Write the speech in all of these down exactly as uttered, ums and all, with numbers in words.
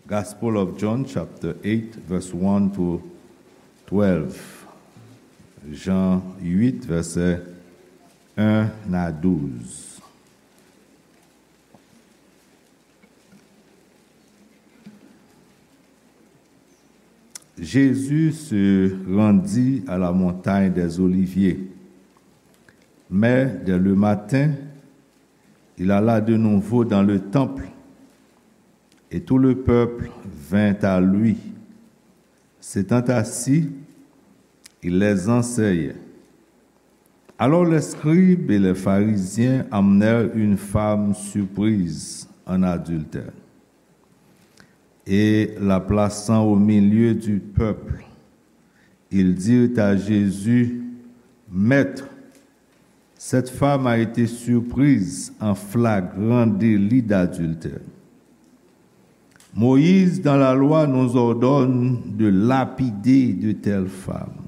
Gospel of John, chapter eight, verse one to twelve. Jan uit, vèsè en a douz. Jésus se rendit à la montagne des Oliviers. Mais dès le matin, il alla de nouveau dans le temple, et tout le peuple vint à lui. S'étant assis, il les enseignait. Alors les scribes et les pharisiens amenèrent une femme surprise en adultère. Et la plaçant au milieu du peuple, ils dirent à Jésus, Maître, cette femme a été surprise en flagrant délit d'adultère. Moïse, dans la loi, nous ordonne de lapider de telles femmes.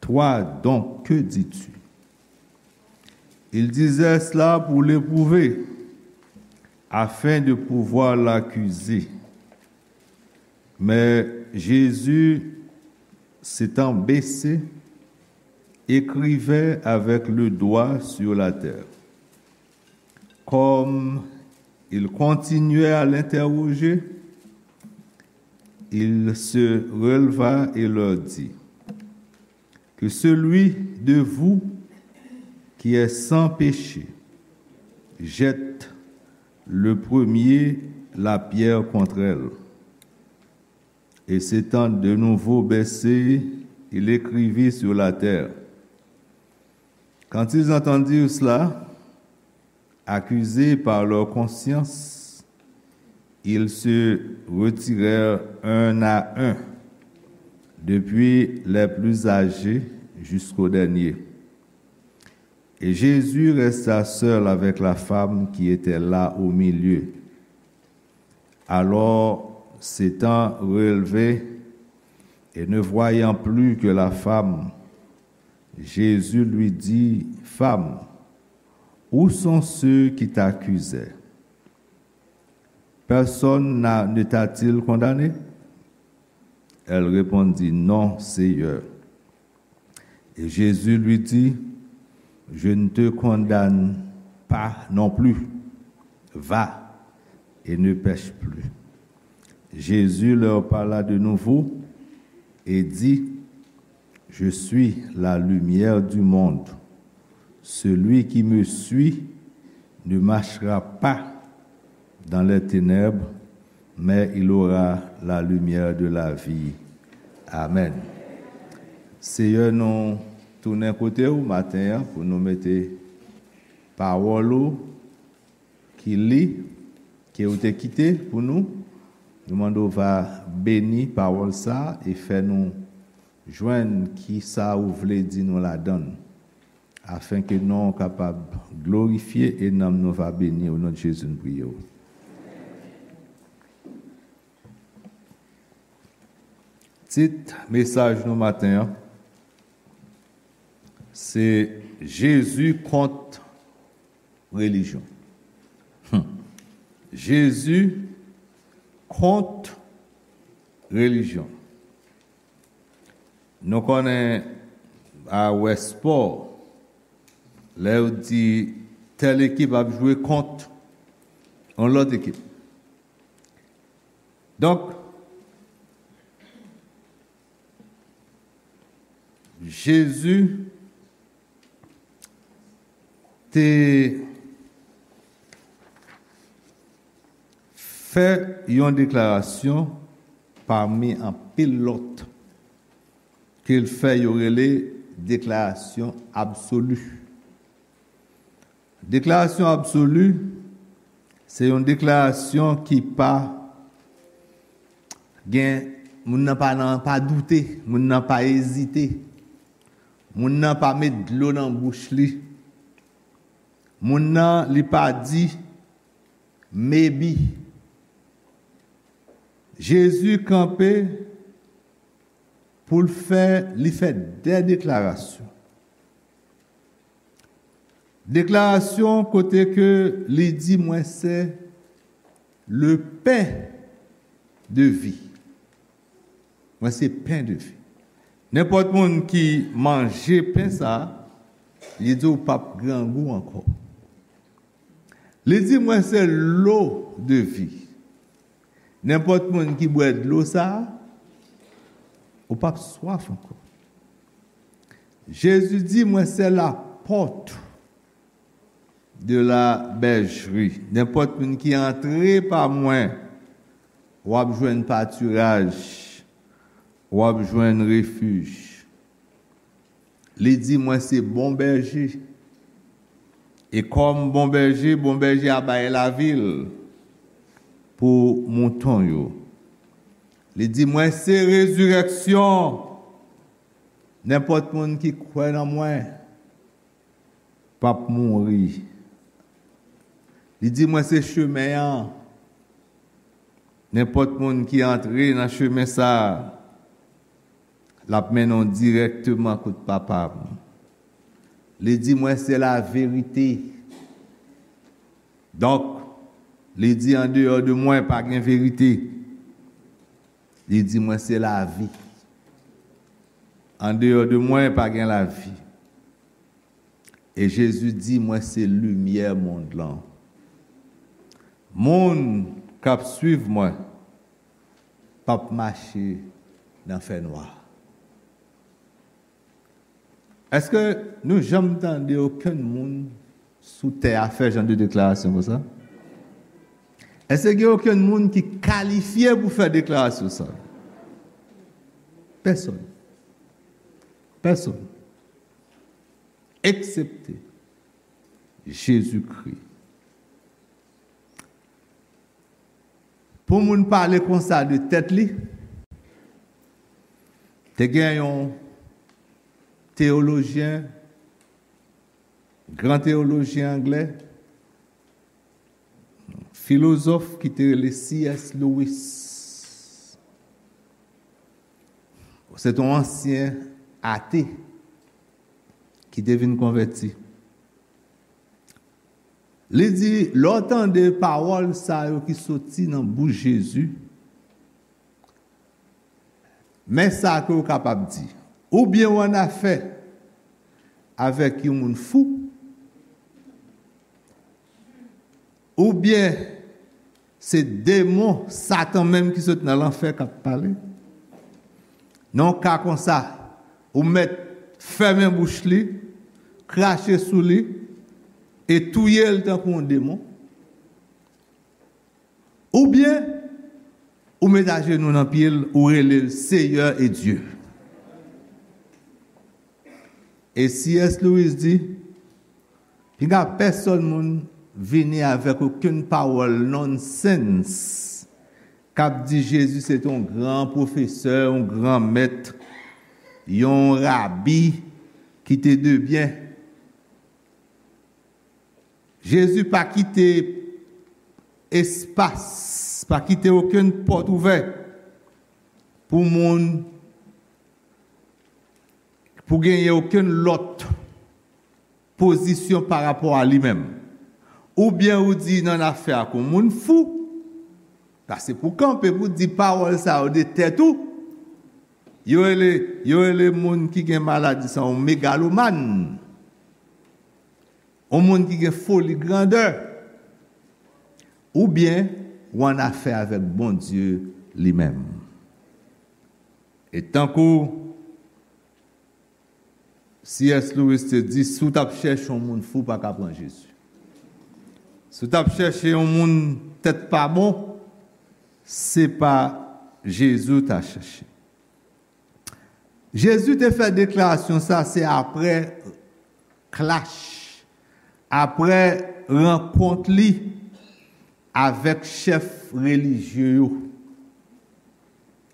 Toi donc, que dis-tu? Il disait cela pour l'éprouver, afin de pouvoir l'accuser. Mais Jésus, s'étant baissé, écrivait avec le doigt sur la terre. Comme il continuait à l'interroger, il se releva et leur dit, Que celui de vous qui est sans péché jette le premier la pierre contre elle. Et s'étant de nouveau baissé, il écrivit sur la terre. Quand ils entendirent cela, accusés par leur conscience, ils se retirèrent un à un, depuis les plus âgés jusqu'au dernier. Et Jésus resta seul avec la femme qui était là au milieu. Alors, s'étant relevé et ne voyant plus que la femme, Jésus lui dit, Femme, où sont ceux qui t'accusaient? Personne n'a, ne t'a-t-il condamné? Elle répondit, Non, Seigneur. Et Jésus lui dit, Je ne te condamne pas non plus. Va et ne pèche plus. Jésus leur parla de nouveau et dit, Je suis la lumière du monde. Celui qui me suit ne marchera pas dans les ténèbres, mais il aura la lumière de la vie. Amen. Seyè, nou tounen kote w maten an pou nou mete pawòl ou ki li, ke ou te kite pou nou. Nou mande w va beni pawòl sa a e fè nou jwenn ki sa ou vle di nou ladan l, afenke non w kapab glorifye e nanm nou va beni. O non de Jezi, nou priye w. Tit mesaj nou maten an, se Jezi kont relijyon. Hmm. Jezi kont relijyon. Nou konnen a wè spò, lè yo di tèl ekip ap jwe kont yon lòt ekip. Donk, Jezi te fè yon deklarasyon pami anpil lòt ke l fè yo rele deklarasyon absoli. Deklarasyon absoli, se yon deklarasyon ki pa gen, moun nan pa nan, pa doute, moun nan pa ezite, moun nan pa met dlo nan bouch li, moun nan li pa di maybe. Jezi kanpe pou l fè, li fè de deklarasyon. Deklarasyon kote ke li di, Mwen se le pen de vi. Mwen se pen de vi. Nenpòt moun ki manje pen sa, li di w p ap grangou ankò. Li di, mwen se lo de vi. Nenpòt moun ki bwè dlo sa, ou p ap swaf ankò. Jezi di, mwen se lapòt de la bèjri. Nenpòt moun ki antre pa mwen, w ap jwenn patiraj, w ap jwenn refij. Li di, mwen se bon bèje. E kòm bon bèje, bon bèje a bay lavi l pou mouton yo. Li di, mwen se rezirèksyon. Nenpòt moun ki kwè nan mwen p ap mouri. Li di, mwen se chemen an. Nenpòt moun ki antre nan chemen sa a, l ap mennen w dirèkteman kot Papa m. Li di, mwen se laverite. Donk, li di, andeyò de mwen, pa gen verite. Li di, mwen se lavi. Andeyò de mwen, pa gen lavi. E Jezi di, mwen se limyè mond lan. Moun k ap swiv mwen p ap mache nan fènwa. Èske nou janm tande okenn moun sou tè a fè jan de deklarasyon konsa? Èske gen okenn moun ki kalifye pou fè deklarasyon sa? Pèsonn. Pèsonn. Eksepte Jezikri. Pou moun pale konsa de tèt li, te gen yon teyolojyen, gran teyolojyen anglè, filozòf ki te rele C S Lewis. Se te yon ansyen ate ki te vin konvèti. Li di, lè w tande pawòl sa yo ki soti nan bouch Jezi, men sa ke w kapab di. Oubyen w annafè avèk yon moun fou, oubyen se demon, Satan menm ki sot nan lanfè k ap pale. Nan yon ka konsa, ou mèt fèmen bouch li, krache sou li, e touye l tankou yon demon. Oubyen, ou met ajenou nan pye l, ou rele l Seyè e Dye. E C S Lewis di, pinga pèsonn moun vini avèk okenn pawòl nonsens k ap di Jezi se te yon gran pwofesè, yon gran mèt, yon rabi ki te de byen. Jezi pa kite espas, pa kite okenn pòt ouvè pou moun, pou genyen okenn lòt pozisyon pa rapò a li menm. Oubyen ou di nan afè ak yon moun fou, sa se pou kanpe pou di pawòl sa yo de tèt ou. Yo rele, yo rele moun ki gen maladi sa yon megalomàn. Yon moun ki gen foli grandè. Oubyen ou annafè avèk Bondye li menm. E tankou C S Lewis te di, si w t ap chèche yon moun fou, pa ka pran Jezi. Si w t ap chèche yon moun tèt pa bon, se pa Jezi w ta chèche. Jezi te fè deklarasyon sa, se apre klach, apre rankont li avèk chèf relijye yo,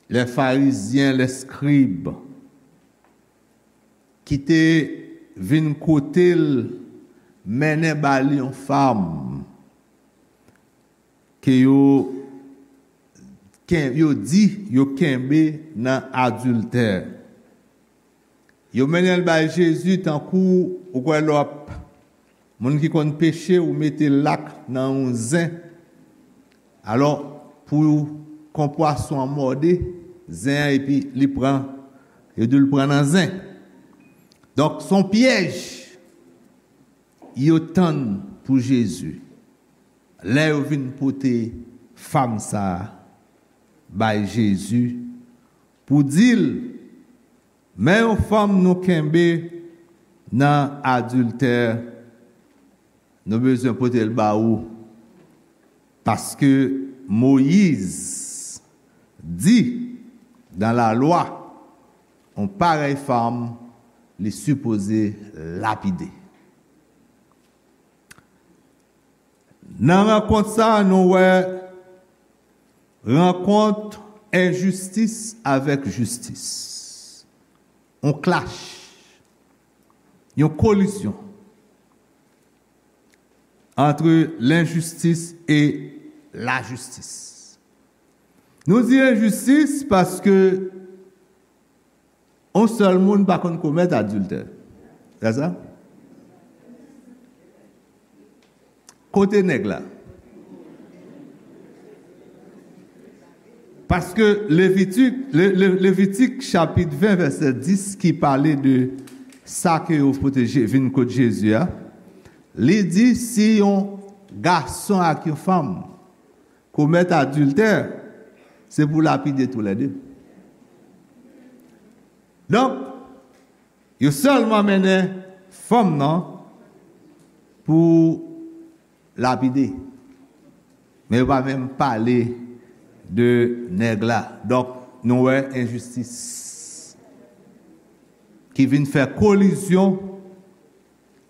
lè farizyen, lè skrib, ki te vin kote l, mennen ba li yon fanm ke yo ken-, yo di yo kenbe nan adiltè. Yo mennen l bay Jezi tankou ou kwè lè w ap, moun ki konn peche, ou mete lak nan yon zen. Alò, pou kon pwason an mòde zen an, epi li pran, yo di l pran nan zen. Donk, se yon pyèj yo tann pou Jezi. Lè yo vin pote fanm sa a bay Jezi pou di l, men yon fanm nou kenbe nan adiltè, nou bezwen pote l ba ou, paske Moyiz di nan lalwa, yon parèy fanm, li sipoze lapide. Nan rankont sa a, nou wè rankont enjistis avèk jistis. Yon clash, yon kolizyon entre l'injustice et la justice. Nou di enjistis paske yon sèl moun pa konn komèt adiltè. Se sa? Kote nèg la? Paske Levitik, Le, Le, Levitik chapit ven vèsè dis ki pale de sa ke yo pote Je- vin kot Jezi a, li di si yon gason ak yon fanm komèt adiltè, se pou lapide toulède. Donk, yo sèlman mennen fanm nan pou lapide. Men yo pa menm pale de nèg la. Donk, nou wè enjistis ki vin fè kolizyon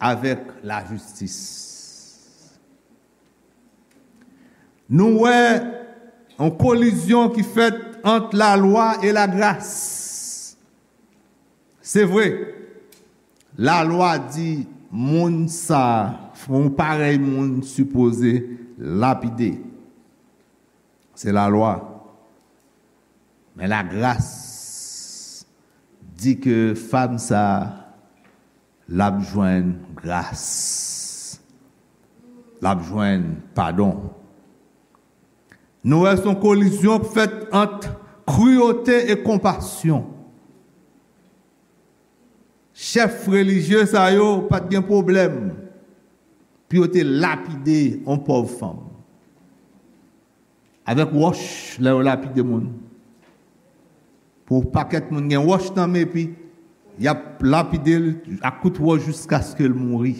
avèk lajistis. Nou wè yon kolizyon ki fèt ant lalwa e lagras. Se vre, lalwa di moun sa, yon parèy moun sipoze lapide. Se lalwa. Men lagras di ke fanm sa, l ap jwenn gras. L ap jwenn padon. Nou wè se yon kolizyon k fèt ant kriyote e konpasyon. Chèf relijye sa yo pa t gen pwoblèm pou yo te lapide yon pòv fanm. Avèk wòch, lè yo lapide moun. Pou pakèt moun gen wòch nan men, epi y ap lapide l ak kout wòch jiskaske l mouri.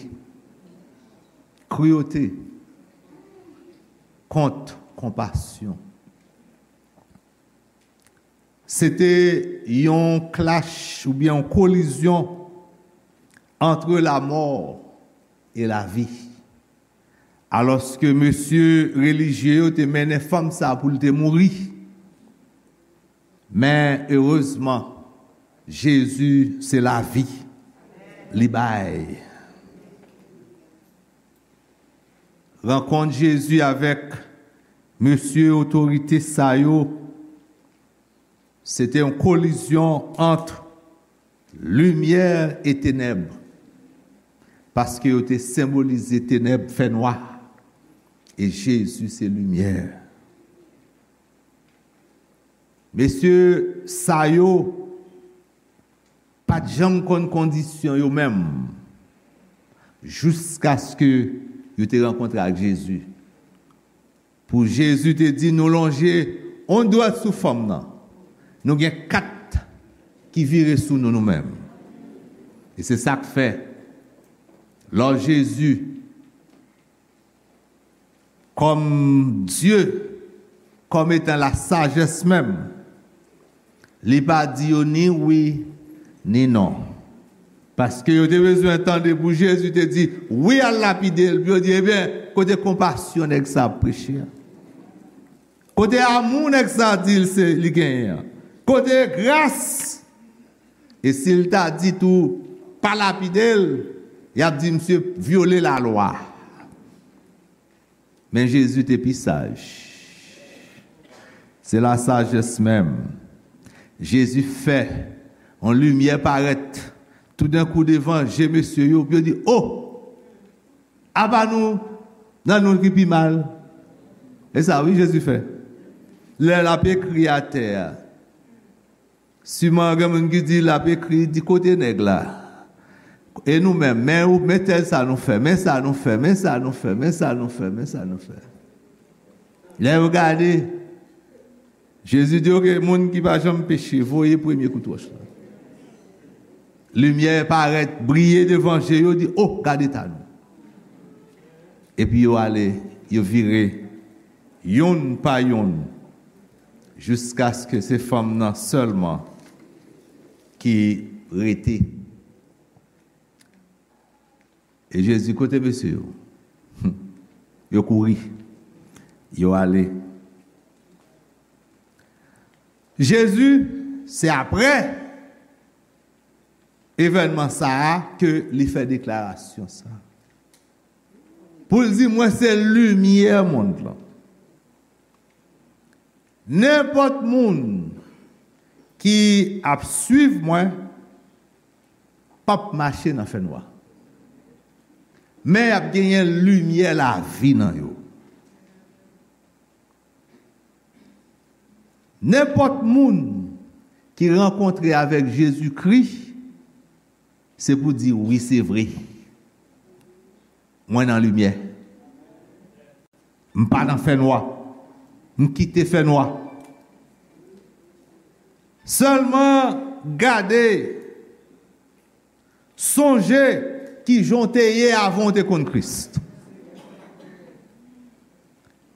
Kriyote kont konpasyon. Se te yon clash oubyen yon kolizyon entre la mort et la vie. Alòske mesye relijye yo te mennen fanm sa pou l te mouri. Men erezman, Jezi se lavi li bay. Rankont Jezi avèk mesye otorite sa yo, se te yon kolizyon ant limyè e tenèb, paske yo te senbolize tenèb, fènwa, e Jezi se limyè. Mesye sa yo pa t janm konn kondisyon yo menm, jiskaske yo te rankontre ak Jezi. Pou Jezi te di, nou lonje yon dwèt sou fanm nan, nou gen kat ki vire sou nou, nou menm. E se sa k fè, lò Jezi, kòm Dye, kòm etan la sajès menm, li pa di yo ni wi, ni non. Paske yo te bezwen tande pou Jezi te di, wi, al lapide l, pou yo di, ebyen, kote konpasyon nèg sa ap preche a? Kote amou nèg sa di l se li genyen an? Kote gras? E si l ta di tou, pa lapide l, y ap di misye vyole lalwa. Men Jezi te pi saj. Se lasajès menm. Jezi fè yon limyè parèt toudenkou devan je mesye yo, pou yo di, o! Apa nou nan nou ki pi mal. E sa, wi, Jezi fè. Lè l ap ekri atè a, siman gen moun ki di l ap ekri, di kote nèg la. E nou menm, men ou, men tèl sa nou fè, men sa nou fè, men sa nou fè, men sa nou fè, men sa nou fè. Lè yo gade, Jezi di, oke, moun ki pa janm peche, voye premye kout wòch la. Limyè parèt, briye devan je yo, di, o, gade ta nou. Epi yo ale, yo vire, youn pa youn, jiskaske se fanm nan sèlman ki rete. E Jezi, kote mesye yo? Yo kouri. Yo ale. Jezi, se apre evènman sa a ke li fè deklarasyon sa. Pou l di, mwen se limyè mond lan. Nenpòt moun ki ap swiv mwen p ap mache nan fènwa. Men y ap genyen limyè lavi nan yo. Nenpòt moun ki rankontre avèk Jezikri, se pou di, wi, se vre. Mwen nan limyè. M pa nan fènwa. M kite fènwa. Sèlman gade, sonje kijan w te ye avan w te konn Kris.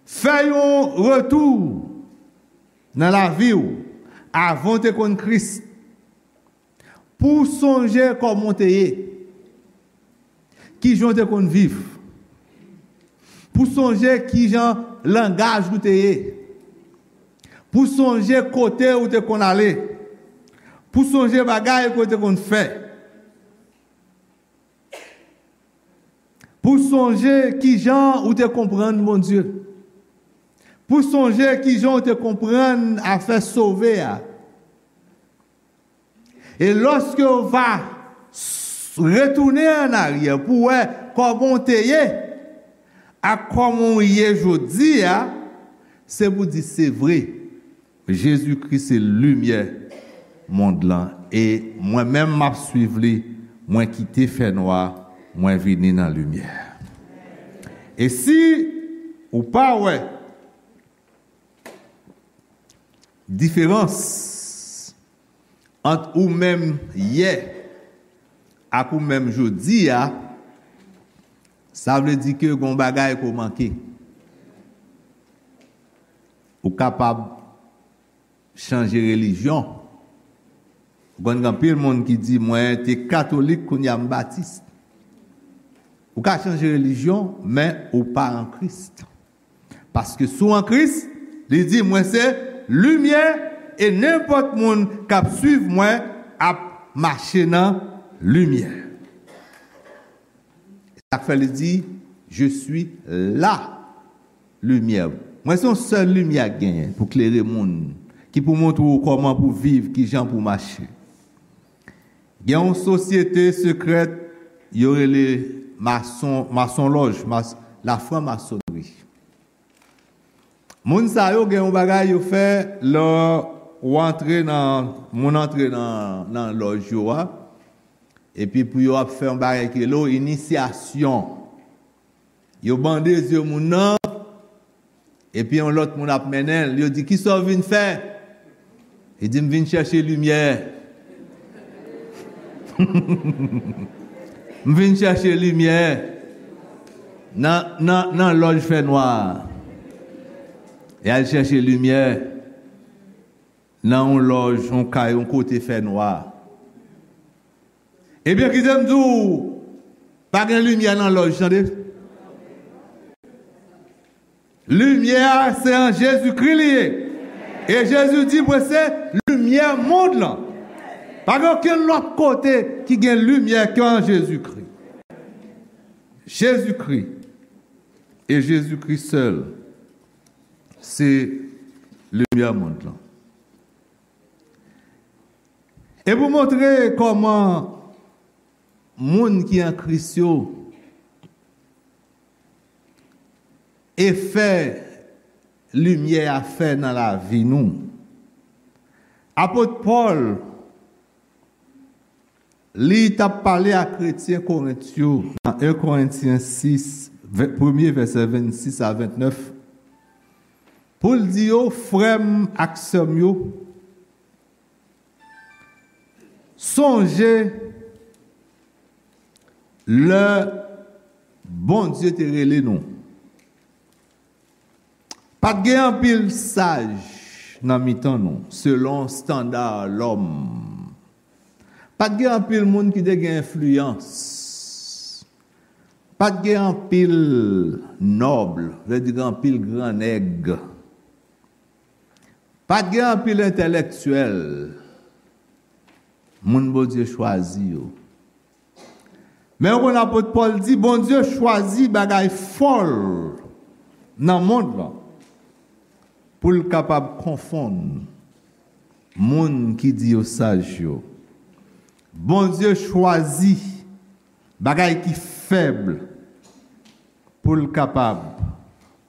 Fè yon retou nan lavi w avan w te konn Kris. Pou w sonje kòman w te ye, kijan w te konn viv, pou w sonje kijan langaj ou te ye, pou w sonje kote ou te konn ale, pou w sonje bagay ke w te konn fè, pou w sonje kijan ou te konprann Bondye, pou w sonje kijan ou te konprann afè sove a. E lòske w va s- retounen annaryè pou w wè kòman w te ye ak kòman w ye jodi a, se pou di se vre. Jezikri se limyè mond lan, e mwen menm m ap swiv li, mwen kite fènwa, mwen vini nan limyè. E si ou pa wè diferans ant ou menm yè ak ou menm jodi a, sa vle di ke gon bagay ke w manke. Ou kapab chanje relijyon. Ou konn gen anpil moun ki di, mwen te katolik, kounye a m batis. Ou ka chanje relijyon, men ou pa an Kris. Paske si w an Kris, li di, mwen se limyè, e nenpòt moun k ap swiv mwen ap mache nan limyè. Sa k fè li di, je suis la lumière. Mwen se yon sèl limyè k genyen pou klere moun, ki pou montre w kòman pou viv, kijan pou mache. Gen yon sosyete sekrèt, yo rele mason, masonlòj, mas, la franc-maçonnerie. Moun sa yo gen yon bagay yo fè lè w antre nan, moun antre nan, nan lòj yo a, epi pou yo ap fè yon bagay ki rele w inisyasyon. Yo bande zye moun nan, epi yon lòt moun ap mennen l. Yo di, kisa w vin fè? Li di, m vin chèche limyè. M vin chèche limyè nan, nan, nan lòj fènwa a. E al chèche limyè nan yon lòj, yon kay, yon kote fènwa. Ebyen, kite m di w, pa gen limyè nan lòj, tande. Limyè a, se an Jezikri li ye. E Jezi di, mwen se limyè mond lan. Pa gen okenn lòt kote ki gen limyè ke an Jezikri. Jezikri. E Jezikri sèl, se limyè mond lan. E pou montre kòman moun ki an Kris yo, efè limyè a fè nan lavi nou. Apot Pòl, li t ap pale a kretyen Korent yo nan en Korentyen sis, vè-, premye vèsè vennsis a vennèf, pou l di yo, frè m ak sè m yo, sonje lè Bondye te rele nou. Pa t gen anpil saj nan mitan nou, selon estanda lòm. Pa t gen anpil moun ki te gen enfliyans. Pa t gen anpil nòb, vle di gen anpil gran nèg. Pa t gen anpil entèlektyèl, moun Bondye chwazi yo. Men ou konn apot Pòl di, Bondye chwazi bagay fòl nan mond lan pou l kapab konfonn moun ki di yo saj yo. Bondye chwazi bagay ki fèb pou l kapab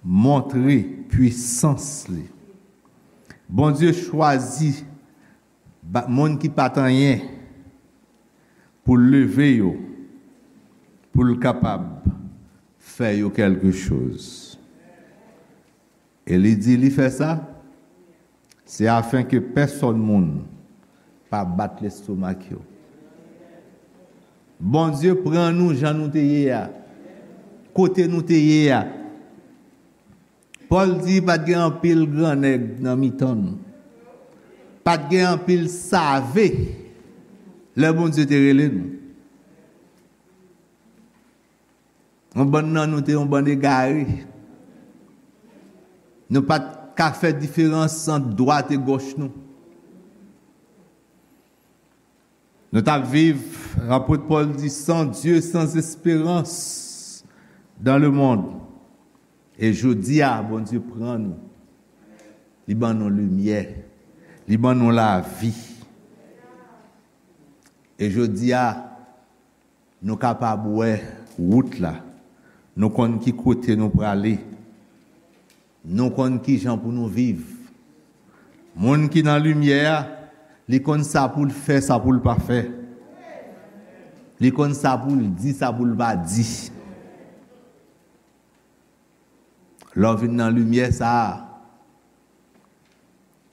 montre pwisans li. Bondye chwazi ba-, moun ki pa t anyen pou l leve yo, pou l kapab fè yo kèlke choz. E li di li fè sa, se afenke pèsòn moun pa bat lestomak yo. Bondye pran nou jan nou te ye a, kote nou te ye a. Pòl di pa t gen anpil gran nèg nan mitan nou. Pa t gen anpil save lè Bondye te rele nou. Yon bann nan nou te yon bann egare. Nou pa t ka fè diferans ant dwat e gòch nou. Nou t ap viv, apot Pòl di, sans Dieu, sans espérance dans le monde. E jodi a, Bondye pran nou. Li ban nou limyè. Li ban nou lavi. E jodi a, nou kapab wè wout la. Nou konn ki kote nou prale. Nou konn ki jan pou nou viv. Moun ki nan limyè a, li konn sa pou l fè, sa pou l pa fè. Li konn sa pou l di, sa pou l pa di. Lè w vin nan limyè sa a,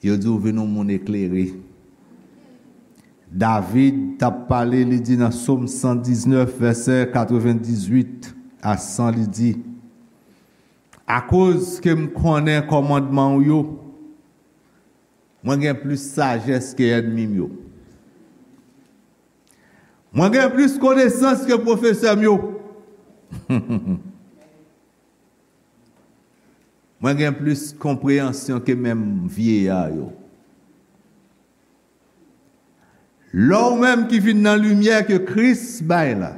yo di w vin yon moun eklere. David t ap pale, li di nan Sòm san diznèf, vèsè katrevendizuit a san, li di, akoz ke m konnen kòmandman w yo, mwen gen plis sajès ke ènmi m yo. Mwen gen plis konesans ke pwofesè m yo. Mwen gen plis konpreyansyon ke menm vyeya yo. Lè w menm ki vin nan limyè ke Kris bay la,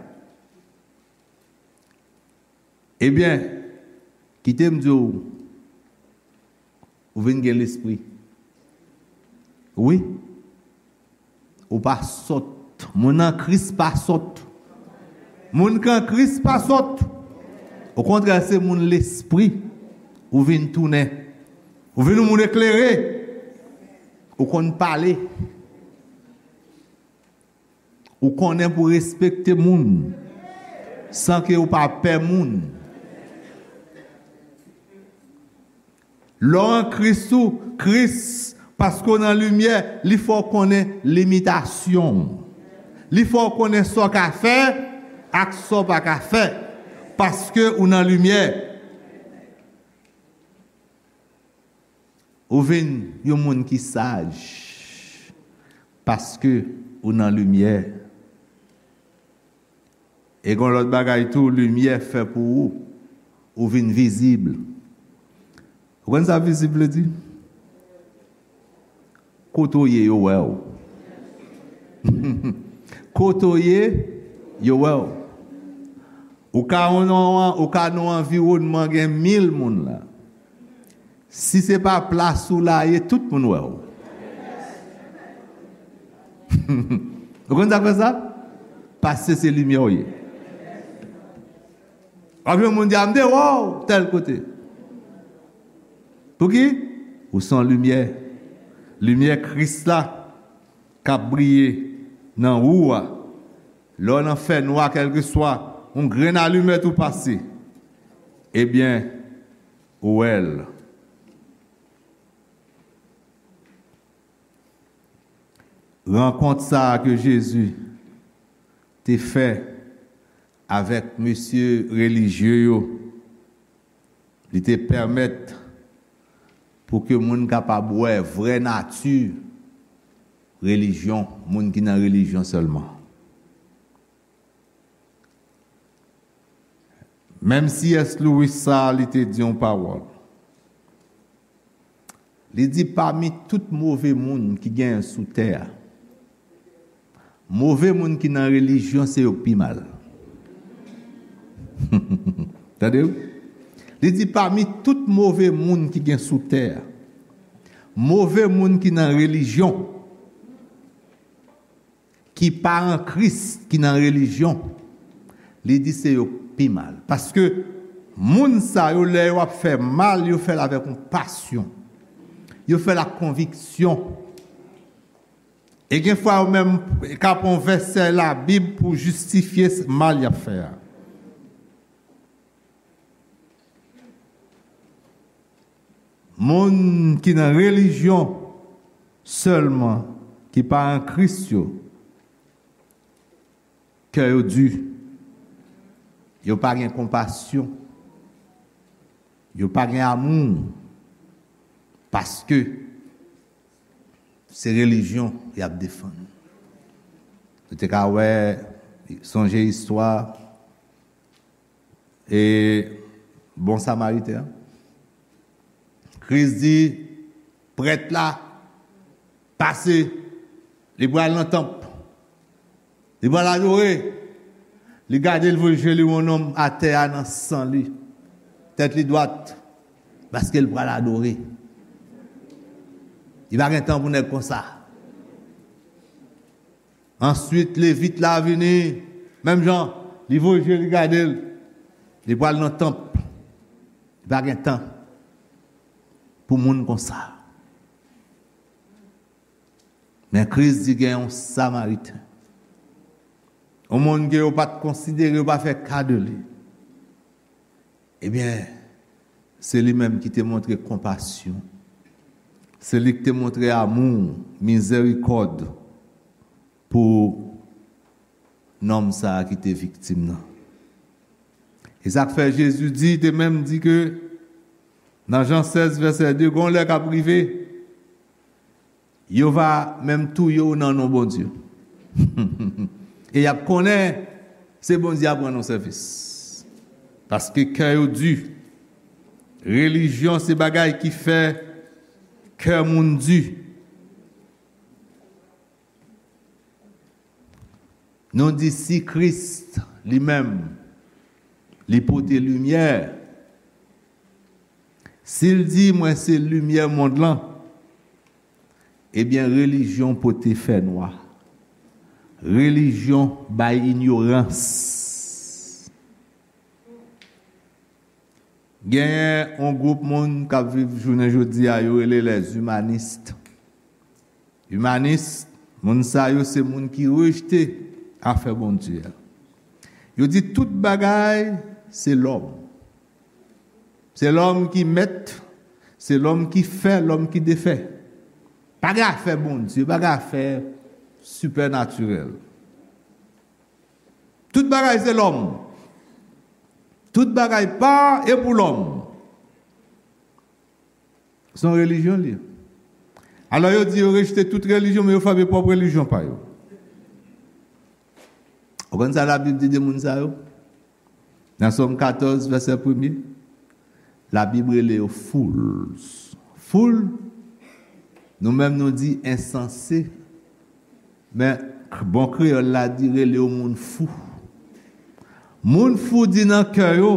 ebyen, kite m di w, ou vin gen lespri. Wi. Ou pa sòt. Moun an Kris pa sòt. Moun k an Kris pa sòt. Okontrè, se moun lespri. Ou vin tounen. Ou vin yon moun eklere. Ou konn pale. Ou konnen pou respekte moun san ke ou pa pè moun. Lè w an Kris ou, Kris, paske w nan limyè, li fè w konnen limitasyon w. Li fè w konnen sa w ka fè ak sa w pa ka fè, paske ou nan limyè. Ou vin yon moun ki saj paske ou nan limyè. E gon lòt bagay tou, limyè fè pou ou, ou vin vizib. Ou konn sa vizib vle di? Kote w ye, yo wè w. Kote w ye, yo wè w. Ou ka nan, ou ka nan yon anviwònman gen mil moun la. Si se pa plas ou la ye, tout moun wè w. Ou konn sa k fè sa? Paske se limyè w ye. W ap jwenn moun di, "A, m te wè w tèl kote." Pouki? Ou se yon limyè. Limyè Kris la k ap briye nan ou a. Lè w nan fènwa, kèlkeswa yon grenn alimèt ou pase, ebyen, ou wè l. Rankont sa a ke Jezi te fè avèk mesye relijye yo, li te pèmèt pou ke moun kapab wè vrè nati relijyon, moun ki nan relijyon sèlman. Menm C S Lewis sa a, li te di yon pawòl. Li di, pami tout move moun ki genyen sou tè a, move moun ki nan relijyon, se yo k pi mal. Tande wi? Li di, pami tout move moun ki gen sou tè a, move moun ki nan relijyon, ki pa an Kris, ki nan relijyon, li di se yo k pi mal. Paske moun sa yo, lè yo ap fè mal, yo fè l avèk yon pasyon. Yo fè l ak konviksyon. E gen fwa yo menm ka pran vèsè Labib pou jistifye s-, mal y ap fè a. Moun ki nan relijyon sèlman, ki pa an Kris yo, kè yo di, yo pa gen konpasyon, yo pa gen amou, paske se relijyon y ap defann. Nou te ka wè, sonje istwa e bon Samariten an. Kris di, prèt la pase, li pral nan tanp, li pral adore. Li gade, l voye je li wè yon nonm atè a nan san li, tèt li dwat, paske l pral adore. Li pa gen tan pou nèg konsa. Answit, Levit la vini, menm jan, li voye je li gade l. Li pral nan tanp. Li pa gen tan pou moun konsa. Men Kris di gen yon Samariten, yon moun ke yo pa t konsidere, yo pa fè ka de li. Ebyen, se li menm ki te montre konpasyon. Se li ki te montre amou, mizèrikòd pou nonm sa a ki te viktim nan. E sa k fè Jezi di, te menm di ke nan Jan sèz vèsè de, gon lè k ap rive, yo va menm touye w nan non Bondye. E y ap konnen se Bondye ap rann ou sèvis. Paske kè yo di. Relijyon se bagay ki fè kè moun di. Nou di si Kris li menm, li pote limyè, si l di, mwen se limyè mond lan, ebyen, relijyon pote fènwa. Relijyon bay inyorans. Genyen yon gwoup moun k ap viv jounen jodi a, yo rele les humanistes. Imanis, moun sa yo se moun ki rejte afè Bondye a. Yo di tout bagay se lòm. Se lòm ki mèt, se lòm ki fè, lòm ki defè. Pa gen afè Bondye, pa gen afè sipènatirèl. Tout bagay se lòm. Tout bagay pa e pou lòm. Se yon relijyon li ye. Alò, yo di yo rejte tout relijyon, men yo fòme pwòp relijyon pa yo. Ou konn sa Labib di de moun sa yo? Nan Sòm katòz, vèsè premye, Labib rele yo fools. Fool, nou menm nou di ensanse, men k-, bon kreyòl la di rele yo moun fou. Moun fou di nan kè yo,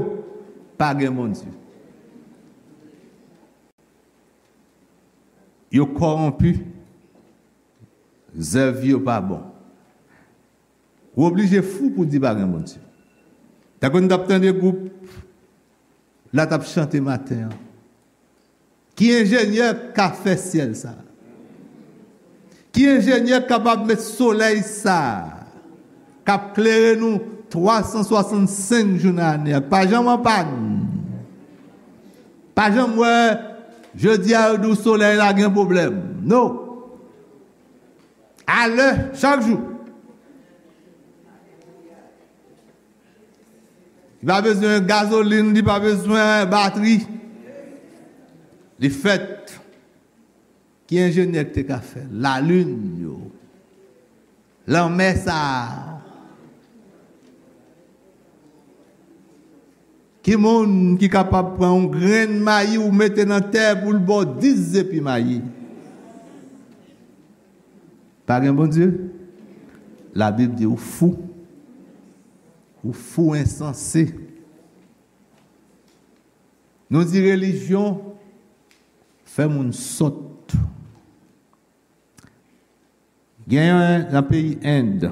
pa gen Bondye. Yo kòwonpi, zèv yo pa bon. Ou oblije fou pou di pa gen Bondye. Tankou n t ap tande gwoup la t ap chante maten an. Ki enjenyè k ka fè syèl sa a? Ki enjenyè k kapab met solèy sa a k ap klere nou twa san swasannsenk jou nan ane a, k pa janm an pàn? Pa janm wè jodi a yo di w solèy la gen pwoblèm. No. Alè, chak jou. Li pa bezwen gazolin, li pa bezwen batri. Li fèt. Ki enjenyè ki te ka fè lalin yo? Lanmè sa a. Ki moun ki kapab pran yon grenn mayi ou mete nan tè pou l ba w dis zepi mayi? Pa gen Bondye? Labib di ou fou. Ou fou, ensanse. Nou di relijyon fè moun sòt. Genyen nan peyi End,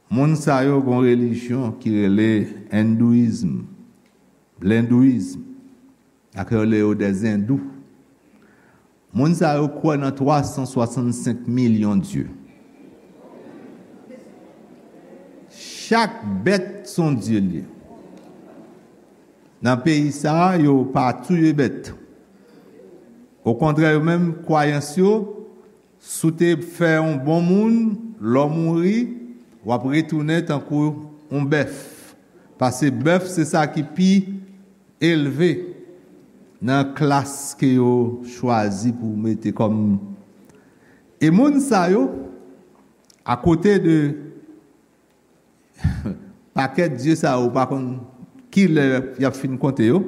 moun sa yo gon relijyon ki rele endouyizm, lendouizm, ak yo rele yo dèzendou. Moun sa yo kwè nan twa san swasannsenk milyon dye. Chak bèt se yon dye li ye. Nan peyi sa a, yo pa touye bèt. Okontrè, yo menm, kwayans yo, si w te fè yon bon moun, lè w mouri, w ap retounen tankou yon bèf. Paske bèf se sa ki pi elve nan klas ke yo chwazi pou mete kòm. E moun sa yo, akote de pakèt dye sa yo, ou pa konn ki lè y ap fin konte yo,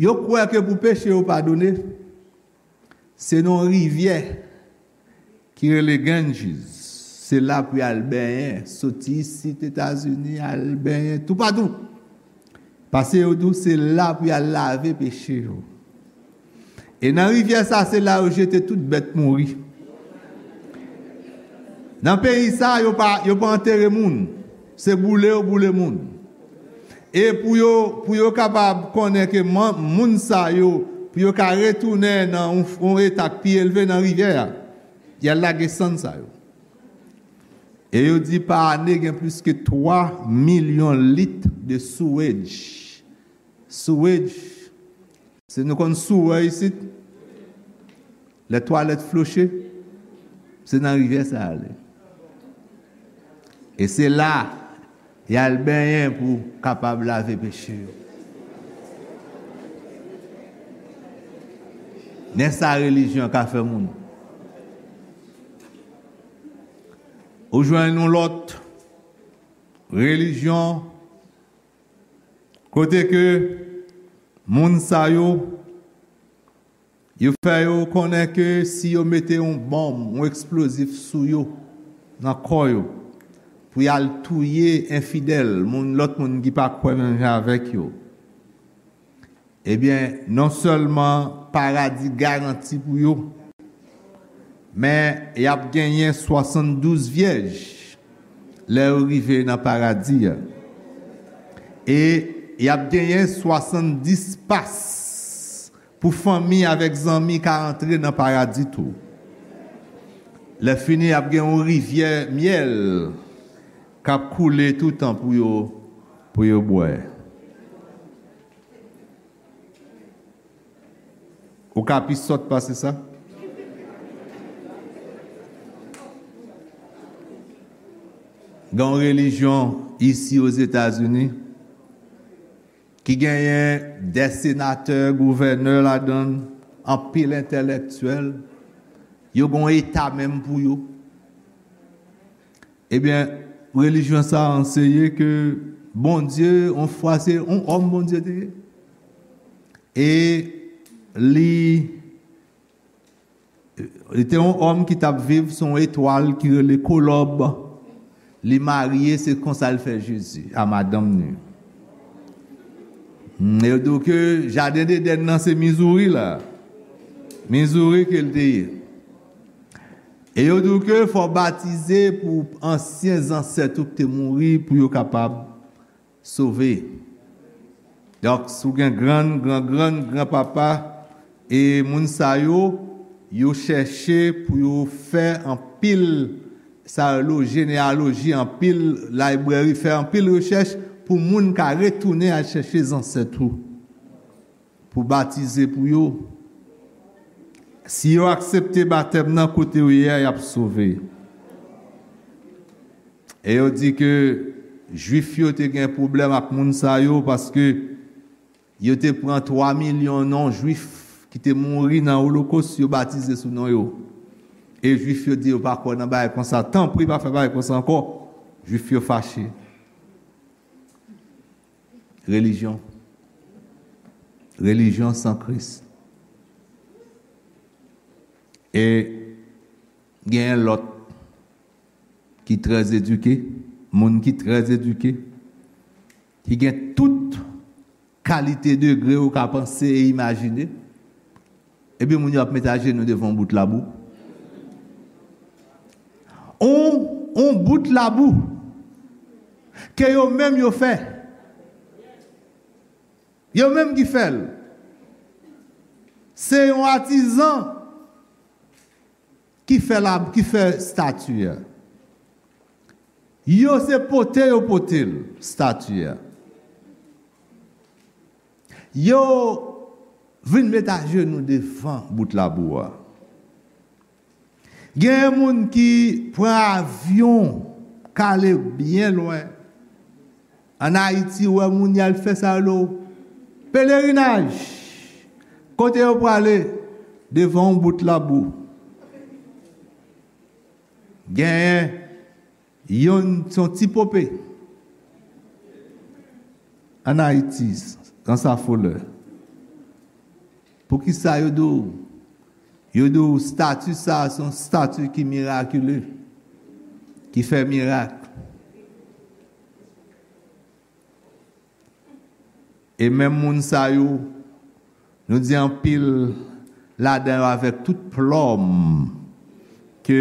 yo kwè ke pou peche yo padone, se nan yon rivyè ki rele Ganges. Se la pou y al benyen, soti isit Etazini, al benyen toupatou. Paske yo di w se la pou y al lave peche yo. E nan rivyè sa, se la yo jete tout bèt mouri. Nan peyi sa, yo pa, yo pa antere moun. Se boule yo boule moun. E pou yo, pou yo kapab konnen ke man-, moun sa yo, pou yo ka retounen nan yon, yon eta k pi elve nan rivyè a, y al lage sann sa yo. E yo di pa ane gen plis ke twa milyon lit de sewage. Sewage, se nou konn sewer isit, lè twalèt floche, se nan rivyè sa ale. E se la y al benyen pou kapab lave peche yo. Men sa relijyon ka fè moun. Ou jwenn yon lòt relijyon kote ke moun sa yo, yo fè yo konnen ke si yo mete yon bòm, yon eksplozif sou yo, nan kò yo, pou y al touye enfidèl, moun, lòt moun ki pa kwè menm jan avèk yo, ebyen, non sèlman paradi garanti pou yo, men y ap genyen swasanndouz vyèj lè yo rive nan paradi a. E y ap genyen swasanndis pas pou fanmi avèk zanmi ka antre nan paradi tou. Lè fini, y ap gen yon rivyè myèl k ap koule toutan pou yo, pou yo bwè. Ou ka pi sòt pase sa? Gen yon relijyon isi Ozetazini ki genyen de senatè, gouvènè ladan l, anpil entèlektyèl. Yo gen yon eta menm pou yo. Ebyen, relijyon sa a anseye ke Bondye, yon fwa, se yon òm Bondye te ye. E li, li te yon òm ki t ap viv sou yon etwal ki rele Kolòb. Li marye, se konsa l fè Jezi a madanm li. Hmm, yo di w ke jaden Edenn nan se Mizouri la. Mizouri ke l te ye. E yo di w ke fò w batize pou ansyen zansèt ou ki te mouri, pou yo kapab sove. Donk, si w gen grann, gran grann, gran papa, e moun sa yo, yo chèche pou yo fè anpil, sa yo rele jeneyaloji, anpil library, fè anpil rechèch pou moun ka retounen al chèche zansèt ou, pou batize pou yo. Si yo aksepte batèm nan kote yo ye a, y ap sove. E yo di ke Jwif yo te gen pwoblèm ak moun sa yo paske yo te pran twa milyon non Jwif ki te mouri nan Olokos, yo batize sou non yo. E Jwif yo di yo pa kwè nan bagay konsa. Tanpri, pa fè bagay konsa ankò. Jwif yo fache. Relijyon. Relijyon san Kris. E genyen lòt ki trè edike, moun ki trè edike, ki gen tout kalite degre ou ka panse e imajine, epi moun yo ap met ajenou devan yon bout labou. On, on bout labou ke yo menm yo fè. Yo menm ki fè l. Se yon atizan ki fè la, ki fè estati a. Yo se pote yo pote l, estati a. Yo vin met ajenou devan bout labou a. Genyen moun ki pran avyon, k ale byen lwen. Ann Ayiti, ou wè moun y al fè sa yo rele pelerinaj. Kote yo prale? Devan yon bout labou. Genyen youn, se yon ti pope. Ann Ayiti, nan sa folè. Poukisa yo di w? Yo di w estati sa a se yon estati ki mirakile, ki fè mirak. E menm moun sa yo, nou di anpil ladan yo avèk tout plòm ke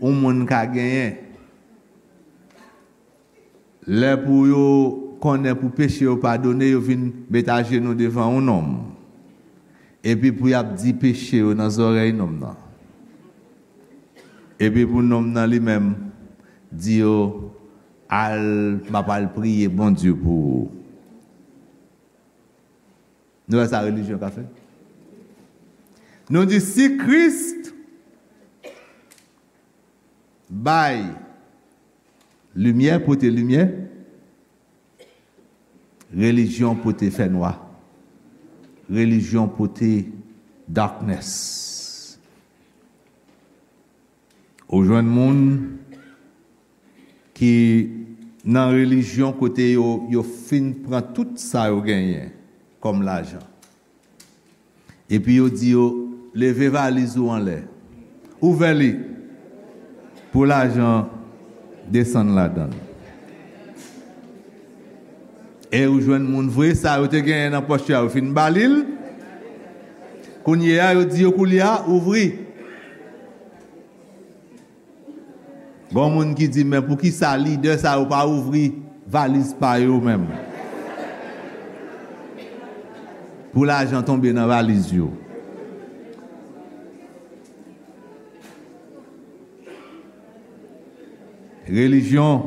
yon moun ka genyen. Lè pou yo konnen pou peche yo padone, yo vin met ajenou devan yon nonm. Epi pou y ap di peche yo nan zòrèy nonm nan. Epi pou nonm nan li menm di yo, al, m ap al priye Bondye pou ou. Nou wè sa relijyon ka fè? Nou di si Kris bay limyè, pote limyè, relijyon pote fènwa. Relijyon pote darkness. Ou jwenn moun ki nan relijyon kote yo, yo fin pran tout sa yo genyen kòm lajan. Epi yo di yo, leve valiz ou anlè. Ouvè li pou lajan desann ladan l. E ou jwenn moun vre, sa yo te genyen nan pòch yo a, yo fin ba li l. Kounye a, yo di yo koulye a, ouvri. Gon moun ki di, men poukisa lidè sa yo pa ouvri valiz pa yo menm? Pou lajan tonbe nan valiz yo. Relijyon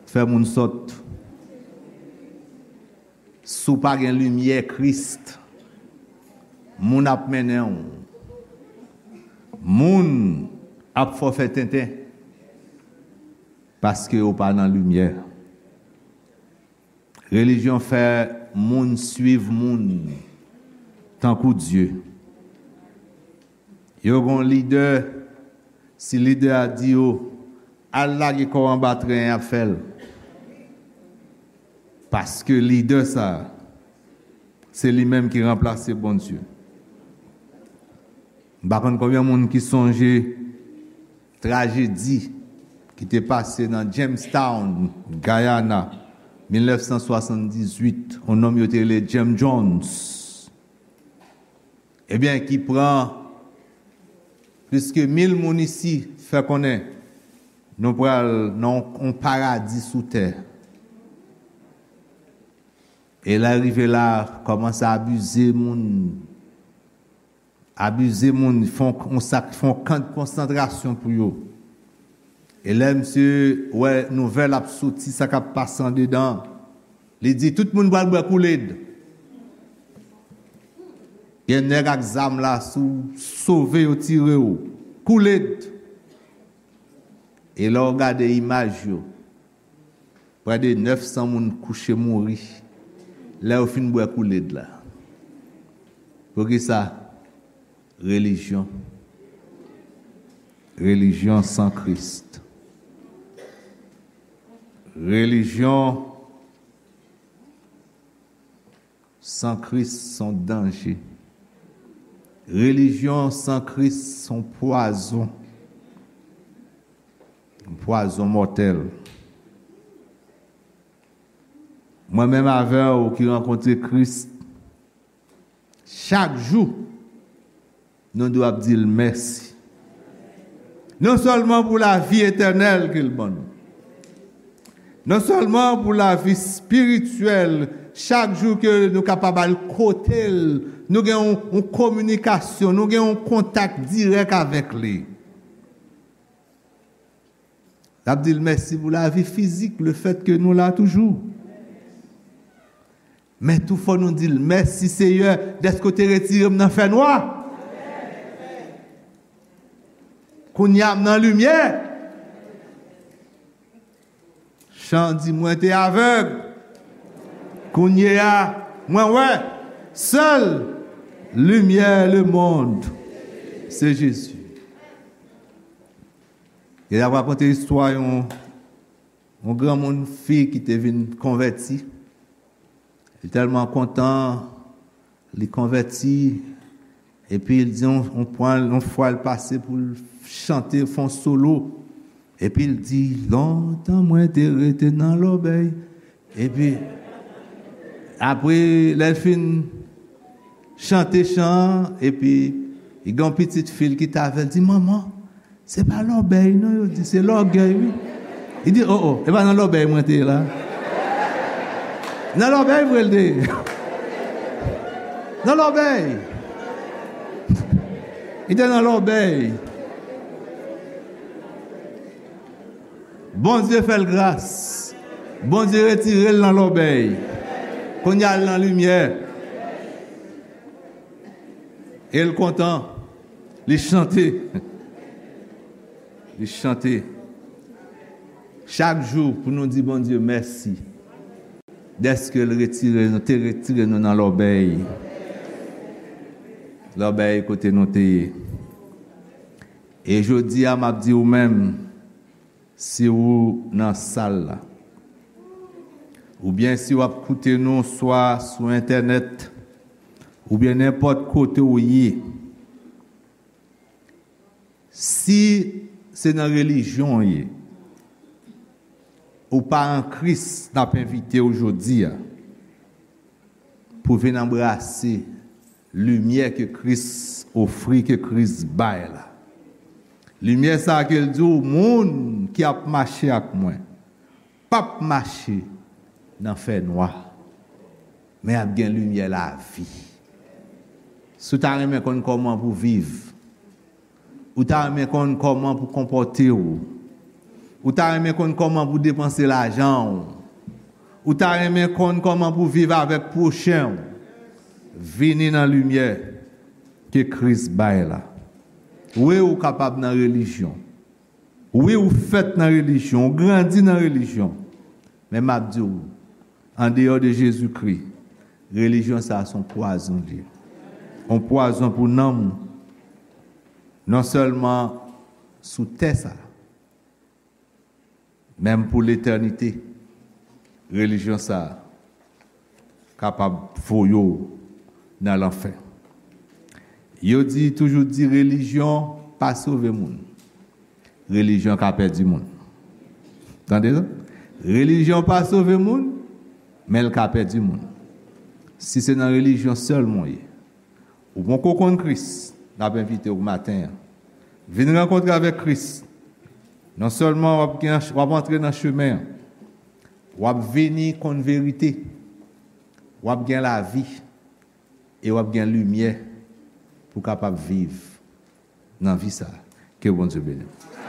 fè moun sòt. Si w pa gen limyè Kris, moun ap mennen w. Moun ap fè w fè tenten paske w pa nan limyè. Relijyon fè moun swiv moun tankou Dye. Yo gon lidè, si lidè a di yo, al lage kò w anba tren an, y ap fè l. Paske lidè sa a, se li menm ki ranplase Bondye. M pa konn konbyen moun ki sonje trajedi ki te pase nan Jamestown, Guyana, mil nèf san swasanndizuit, yon nonm yo te rele Jim Jones. Ebyen, ki pran plis ke mil moun isi, fè konnen nou pral nan yon, yon paradi sou tè. E lè l rive la, kòmanse abize moun. Abize moun, fè yon, yon sak, fè yon kan de konsantrasyon pou yo. E lè misye wè nouvèl ap soti, sa k ap pase andedan, li di, "Tout moun pral bwè Kool-Aid." Gen nèg ak zam la, si w sove, yo tire w. Kool-Aid. E lè w gade imaj yo, prè de nèf san moun kouche mouri lè yo fin bwè Kool-Aid la. Poukisa? Relijyon. Relijyon san Kris. Relijyon san Kris se yon danje. Relijyon san Kris se yon pwazon. Yon pwazon mòtèl. Mwen menm avè w ki rankontre Kris, chak jou, nou dwe ap di l mèsi. Non sèlman pou lavi etènèl ke l ban nou, non sèlman pou lavi espirityèl, chak jou ke nou kapab al kote l, nou gen yon, yon kominikasyon, nou gen yon kontak dirèk avèk li. N ap di l mèsi pou lavi fizik, lefèt ke nou la toujou. Men tou fò nou di l, "Mèsi, Seyè, dèske w te retire m nan fènwa. Kounye a m nan limyè." Chan di, "Mwen te avèg. Kounye a, mwen wè." Sèl limyè lemonn, se Jezi. E l ap rakonte istwa yon, yon granmoun fi ki te vin konvèti. Li tèlman kontan, li konvèti, epi l di yon, yon pwen, yon fwa l pase pou l chante, fè yon solo. Epi l di, "Lontan mwen te rete nan lòbèy." Epi, apre, lè l fin chante chan an, epi, li gen yon pitit fi l ki t avè l, di, "Manman, se pa lòbèy, non, yo di, se lògèy, wi." Li di, "O, o, e pa nan lòbèy mwen te ye la." Nan lòbèy vre l te ye. Nan lòbèy. Li te nan lòbèy. Bondye fè l gras. Bondye retire l nan lòbèy. Kounye a l nan limyè. E l kontan. Li chante. Li chante. Chak jou pou nou di Bondye mèsi. Dèske l retire nou, te retire nou nan lòbèy. Lòbèy kote nou te ye. E jodi a, m ap di ou menm, si ou nan sal la, oubyen si w ap koute nou swa sou entènèt, oubyen nenpòt kote ou ye, si se nan relijyon w ye, ou pa an Kris, n ap envite w jodi a pou vin anbrase limyè ke Kris ofri, ke Kris bay la. Limyè sa a ke l di w, moun ki ap mache ak mwen p ap mache nan fènwa, men ap gen limyè lavi. Si w ta renmen konn kòman pou viv, ou ta renmen konn kòman pou konpòte w, ou ta renmen konn kòman pou depanse lajan w, ou ta renmen konn kòman pou viv avèk pwochen w, vini nan limyè ke Kris bay la. Wi, ou kapab nan relijyon. Wi, ou fèt nan relijyon, ou grandi nan relijyon. Men m ap di w, andeyò de Jezikri, relijyon sa a se yon pwazon li ye. Yon pwazon pou nanm ou. Non sèlman sou tè sa a, menm pou letènite, relijyon sa a kapab voye w nan lanfè. Yo di, toujou di, relijyon pa sove moun. Relijyon ka pèdi moun. Tande sa? Relijyon pa sove moun, men l ka pèdi moun. Si se nan relijyon sèlman w ye, ou poko konn Kris, n ap envite w maten an. Vin rankontre avèk Kris. Non sèlman w ap gen, w ap antre nan chemen an, w ap vini konn verite. W ap gen lavi e w ap gen limyè pou w kapab viv nan vi sa a. Ke Bondye beni w.